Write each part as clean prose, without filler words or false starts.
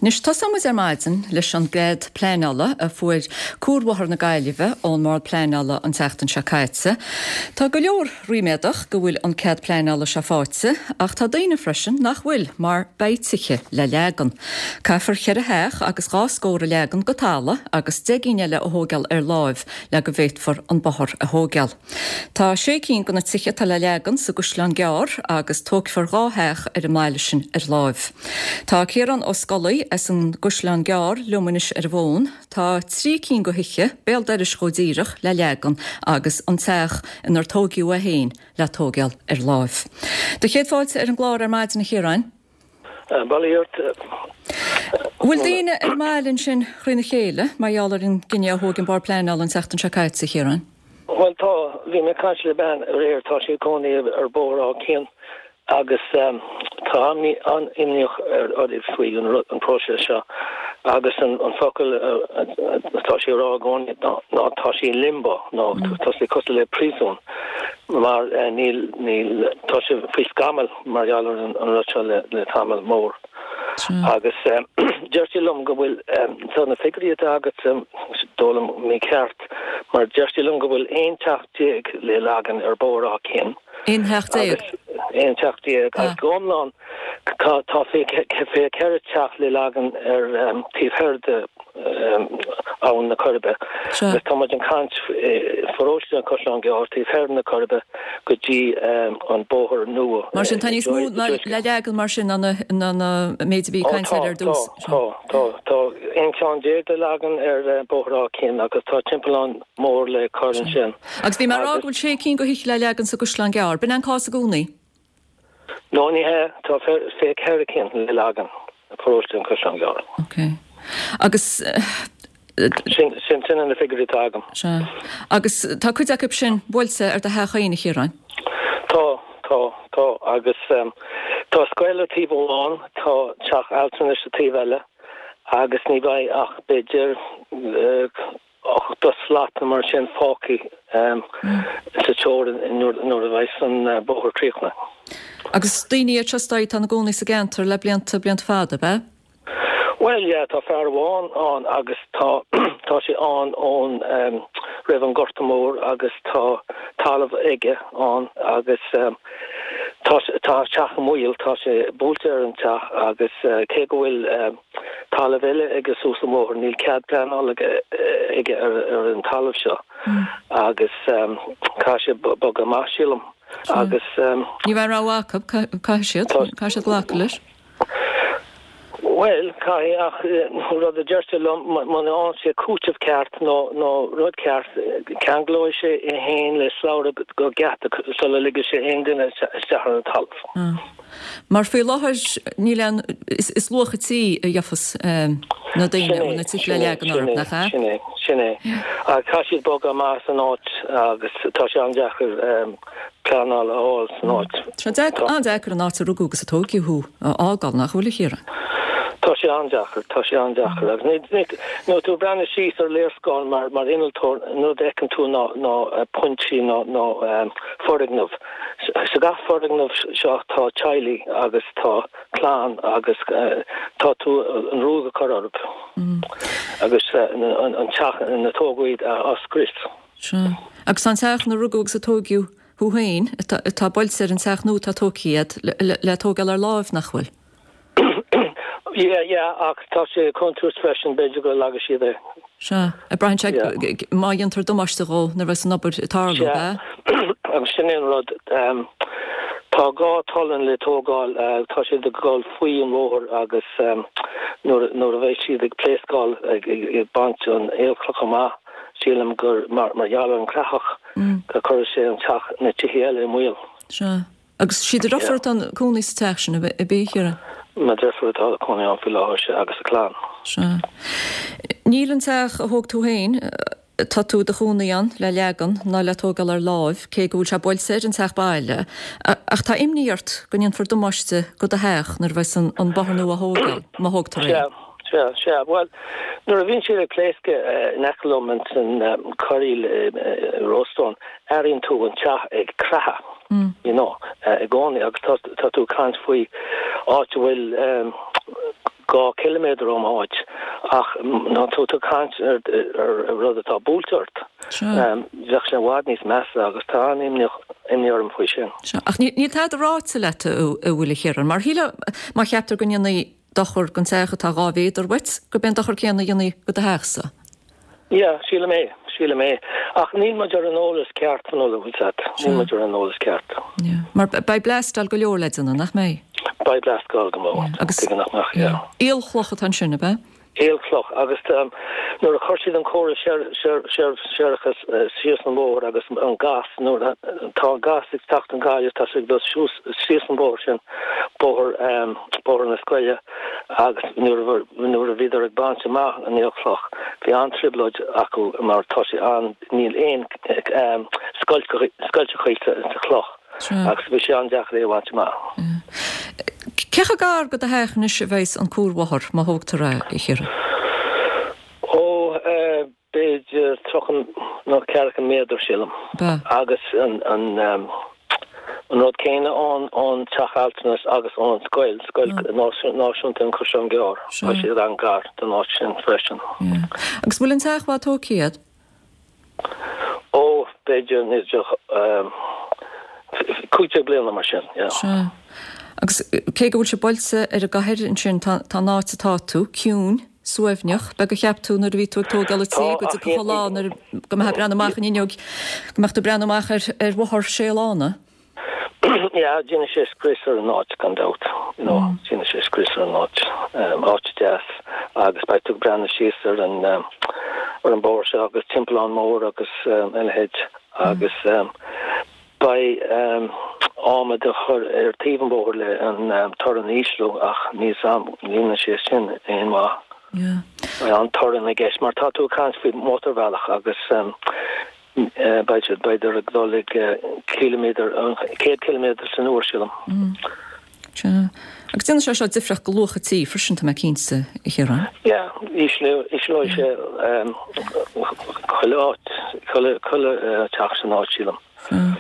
Anois, tosóidh muid ar maidin leis an gcead pleanála a fuair Cuarbhóthar na Gaillimhe ón mBord Pleanála an tseachtain seo caite. Tá go leor ríméadach go bhfuil an cead pleanála seo faighte, ach tá daoine freisin nach bhfuil, mar beidh tithe le leagan. Caithfear cheithre theach agus dhá scór a leagan go talamh agus 10 gcinn eile a thóigeáil ar láimh le go bhféadfar an bóthar a thóigeáil. Tá sé cinn de na tithe atá le leagan sa gCaisleán Gearr agus tógfar dhá theach ar an mbaile sin ar láimh. Tá Ciarán Ó Scolaí as an gCaisleán Gearr liom anois ar an bhfón. Tá trí cinn de thithe, béal dorais dhó díreach, le leagan agus an teach inar tóigeadh é féin le tóigeáil ar láimh. Do chéad fáilte ar an gclár ar maidin a Chiaráin. Bail ó Dhia ort. Bhfuil daoine ar an mbaile ansin thrína chéile mar gheall ar an gcinneadh a thóg an Bord Pleanála an tseachtain seo caite, a Chiaráin? Bhuel tá. Bhí mé ag caint le bean aréir, tá sí ag cónaí ar Bhóthar Áth Cinn agus tá an-imníoch uirthi faoi an próiseas seo agus an focal atá sí a rá i gcónaí ná tá sí in limbo nó tá sé cosúil le príosún mar níl, níl, tá sé faoi scamall. mar gheall ar an rud seo le tamall mór. Agus deir sí liom go bhfuil, tá na figiúirí atá agat is dóigh liom mícheart, mar deir sí liom go bhfuil 11 teach le leagan ar Bhóthar Áth Cinn. 11 theach? 11 teach agus go hiomlán tá 24 teach le leagan ar taobh thoir de Abhainn na Coiribe. Agus tá muid ag caint pharóiste an Chaisleáin Ghearr taobh thoir na Coiribe go dtí an bóthar nua. Mar sin tá níos mó le leagan mar sin ná an méid a bhí caint air ar dtús. Tá, tá, tá. 11 ceann le leagan ar Bhóthar Áth Cinn agus tá timpeallán mór le cur ansin. Agus bhí mé ag rá go bhfuil sé cinn de thithe le leagan sa gCaisleán Gearr. B'in é an cás i gcónaí? No, ní hea. Tá 24 cinn le leagan i bparóiste an Chaisleáin Ghearr. Ok. Agus. Sin, sin, sin na figiúirí atá agam. Sea. Agus tá cuid acu sin buailte ar do theach féin, a Chiaráin? Tá, tá, tá. Agus tá scoil ar taobh amháin, tá teach altranais sa taobh eile agus ní bheidh ach b'fhéidir 80 slat nó mar sin fágtha sa teorainn nuair a bheas an bóthar críochnaithe. Agus daoine iad seo is dóigh atá ina gcónaí sa gceantar le blianta, blianta fada, ab ea? Bhuel, yeah, tá fear amháin ann agus tá, tá sé ann ón, roimh an Gorta Mór agus tá talamh aige ann agus tá, tá a teach i mbaol, tá sé buailte ar an teach agus cé go bhfuil, talamh eile aige suas an bhóthar. Níl cead pleanála aige ar an talamh seo agus caithfidh sé bogadh amach, sílim. Agus. Ní bheidh rogha acu, caithfidh siad, caithfidh siad glacadh leis. Bhuel, caithfidh, ach rud a deir sé liom, muna fhaigheann sé cúiteamh ceart nó nó rud ceart, ceanglóidh sé é féin le slabhra go geata sula ligfidh sé aon duine isteach ar an talamh. Mar faoi láthair níl aon, is luach an tí a gheofas na daoine a bhfuil na tithe le leagan orthu, nach ea? Sin é, sin é. Ach caithfidh siad bogadh amach as an áit agus tá sé an-deacair pleanáil a fháil san áit. Tá sé an-deacair an áit a rugadh agus a tóigeadh thú a fhágáil, nach bhfuil, a Chiaráin? Tá sé an-deacair, tá sé an-deacair. Agus ní, nuair tú ag breathnú síos ar léarscáil mar, mar innealtóir, an rud a fheiceann tú ná, ná pointí ná, ná foirgneamh. Sa gach foirgneamh seo tá teaghlaigh agus tá clann agus tá tú an ruaig a chur orthu agus an teach ina tógadh iad á scrios. Sea. Agus tá an teach ina rugadh agus a tóigeadh thú féin, atá buailte ar an teach nua atá tógtha agat, le tógáil ar láimh, nach bhfuil? Yeah, yeah, ach tá sé i gcontúirt freisin, b'fhéidir go leagfaidh siad é. Sea, braitheann sé má dhéantar damáiste dhó nuair a bheas an obair ag tarlú, ab ea? Sea, agus sin é an rud. Tá dhá tollán le tógáil, tá siad ag dul faoi an bhóthar agus nuair a bheidh siad ag pléascáil, ag baint an aolchloch amach, sílim gur mar gheall ar an creathach go cuirfidh sé an teach, na tithe eile i mbaol. Sea. Agus sí do dheirfiúr atá ina cónaí sa teach sin, ab ea, a Chiaráin? Mo dheirfiúr atá ina cónaí ann faoi láthair, sea, agus a clann. Sea. Níl an teach a thóg tú féin, atá tú i do chónaí ann, le leagan ná le tógáil ar láimh, cé go bhfuil sé buailte ar an teach baile, ach tá imní ort go ndéanfar damáiste go do theach nuair a bheas an bóthar nua á thógáil, má thógtar é. Sea, sea, sea. Bhuel, nuair a bhíonn siad ag pléascadh in aice liom ins an corraíl i Rossstone, airíonn tú an teach ag creathadh. you know, i gcónaí agus tá tú ag caint faoi áit a bhfuil. 2 chiliméadar óm áit ach tá tú ag caint ar rud atá buailte ort. Bheadh sé i bhfad níos measa agus tá an-imní orm faoi sin. Sea, ach níl tada ráite leat an bhfuil a Chiaráin? Mar shílfeá má cheaptar go ndéanfaí dochar don teach atá 2 mhéadar uait, gurb é an dochar céanna a dhéanfaí do do theachsa. Yeah, sílim é, sílim é. Ach níl muid ar an eolas ceart, Fionnuala, bhfuil 's a't. Níl muid ar an eolas ceart. Yeah. Mar beidh bleastáil go leor le déanamh, nach mbeidh? Beidh bleastáil go mór. Yeah. Agus. Tuige nach mbeadh, yeah. Aolchloch atá ansin, ab ea? Aolchloch. Agus nuair a chuir siad an córas séarachais síos an bóthar agus an gas, nuair tá an gas ag teacht ón Gaillimh, tá sé ag dul síos an bóthar sin, bóthar, bóthar na scoile, agus nuair nuair a bhíodar ag baint amach an aolchloch bhí an-trioblóid acu mar tá sé an níl aon scoilteachaí sa chloch agus bhí sé an-deacair é a bhaint amach. Cé chomh gar go do theach anois a bheas an cuarbhóthar má thógtar é, a Chiaráin? Ó, B'fhéidir 30 nó ceathracha méadar, sílim. Agus an rud céanna ón teach altranais agus ón scoil, Scoil Náisiúnta an Chaisleáin Ghearr, tá siad an-ghar don áit sin freisin. Agus bhfuil an teach fad tógtha agat? Ó, b'fhéidir 15 bliana mar sin, yeah. Sea. Agus cé go bhfuil sé buailte ar an gcathair ansin, tá an áit atá tú ciúin. suaimhneach. B'fhéidir gur cheap tú nuair a bhí tú ag tógáil an tí go dtiocfadh an lá nuair go mbeifeá ag breathnú amach an fhuinneog, go mbeadh tú ag breathnú amach ar ar bhóthar sé lána. Yeah, déanfaidh sé scrios ar an áit gan dabht, you know, déanfaidh sé scrios ar an áit, áit deas agus beidh tú ag breathnú síos ar an ar an bóthar seo agus timpeallán mór agus a leithéid agus Beidh adhmad á chur ar taobh an bhóthair le an torann a ísliú ach níl 's a'm an ndéanfaidh sé sin aon mhaith. Beidh an torann i gceist mar tá tú ag caint faoi mhótarbhealach agus beidh siad b'fhéidir ag dul ag ciliméadar, 100 ciliméadar san uair sílim. Sea. Agus déanfaidh sé seo difríocht go luach an tí freisin, tá mé cinnte, a Chiaráin. Yeah, ísleoidh sé chuile áit, chuile teach san áit, sílim. Sea.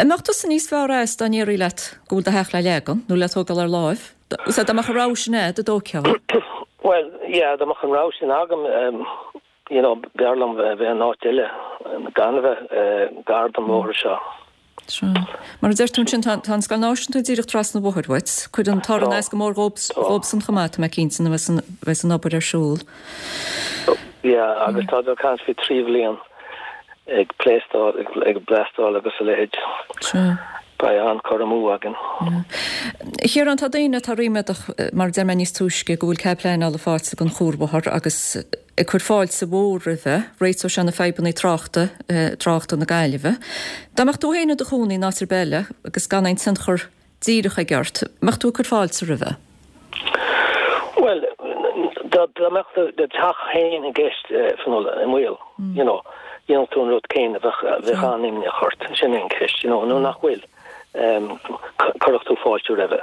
An mbeadh tusa níos fearr as dá ndéarfaí leat go bhfuil do theach le leagan, nó le tógáil ar láimh? Sea, dá mbeadh an rogha sin a'd, an dtógfá? Bhuel, yeah, dá mbeadh an rogha sin agam, you know, b'fhearr liom bheith in áit eile, gan a bheith gar don bhóthar seo. Sea. Mar a deir tú ansin, tá an Scoil Náisiúnta díreach trasna an bhóthair uait. Cuireann an torann as go mór dhóibhsan chomh maith, tá mé cinnte, nuair a bheas an obair ar siúl. Yeah, agus tá ag caint faoi 3 bhliain ag pléastáil, ag bleastáil agus a leithéid. Sea. Beidh an-cur amú againn. A Chiaráin, tá daoine atá ríméadach, mar a deir mé níos túisce, go bhfuil cead pleanála faighte don chuarbhóthar agus ag cur fáilte mhór roimhe, réiteodh sé na fadhbanna tráchta, tráchta na Gaillimhe. Dá mbeadh tú féin i do chónaí in áit ar bith eile agus gan aon tionchar díreach aige ort, mbeadh tú ag cur fáilte roimhe? Bhuel, dá mbeadh do theach féin i gceist, Fionnuala, i mbaol, you know, dhéanfadh tú an rud céanna, bheadh, bheadh an-imní ort, sin é an cheist, you know, nó nach bhfuil. Chuirfeadh tú fáilte roimhe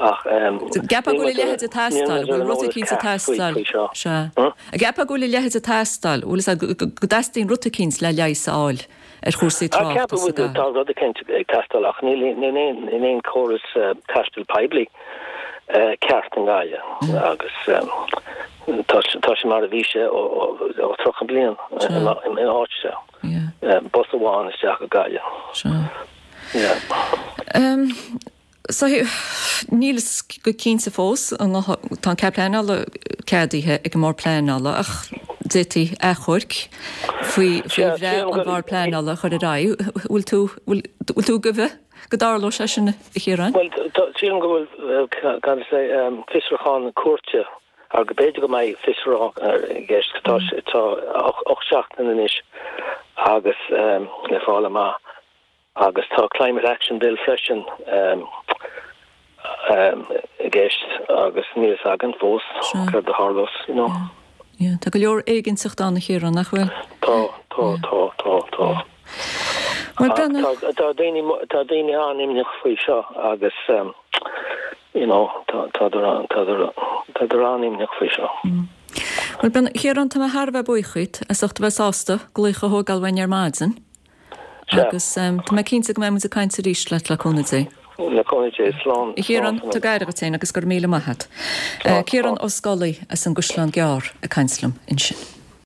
ach Ceapfá go bhfuil a leithéid ag teastáil, bhfuil rud eicínt ag teastáil, sea. Ceapfá go bhfuil a leithéid ag teastáil, bhfuil fhios agat, go dteastaíonn rud eicínt le leigheas a fháil ar chúrsaí tráchta sa gcathair. Tá rud eicínt ag teastáil ach níl aon chóras taistil poiblí ceart i nGaillimh agus tá sé mar a bhí sé ó 30 bliain in áit seo. Bus amháin isteach go Gaillimh. Sea. Yeah. So, níl fhios go cinnte fós, tá an cead pleanála ceadaithe ag an mBord Pleanála ach d'fhéadfaí achomharc faoi bhreith an Bhord Pleanála a chur ar aghaidh. Bhfuil tú, bhfuil tú ag goimh go dtarlóidh sé sin, a Chiaráin? Bhuel, sílim go bhfuil, cad is é, fiosrúchán cúirte Agus b'fhéidir go mbeidh fiosrúchán i gceist. Tá tá 8 seachtain anois agus le fáil amach agus tá Climate Action Bill freisin i gceist agus níl fhios againn fós céard a tharlós, you know. Yeah, tá go leor éiginnteacht ann a Chiaráin, nach bhfuil? Tá, tá, tá, tá, tá. Bhuel, tá daoine tá daoine an-imníoch faoi seo agus you know, tádar tádar an-imníoch faoi seo. Bhuel, a Chiaráin, tá mé thar a bheith buíoch díot as ucht a bheith sásta glaoch a thógáil uainn ar maidin. Agus tá mé cinnte go mbeidh muid ag caint arís leat le cúnamh Dé. Le cúnamh Dé, slán. A Chiaráin, tug aire dhuit féin agus go raibh míle maith agat. Ciarán Ó Scolaí as an gCaisleán Gearr ag caint liom ansin.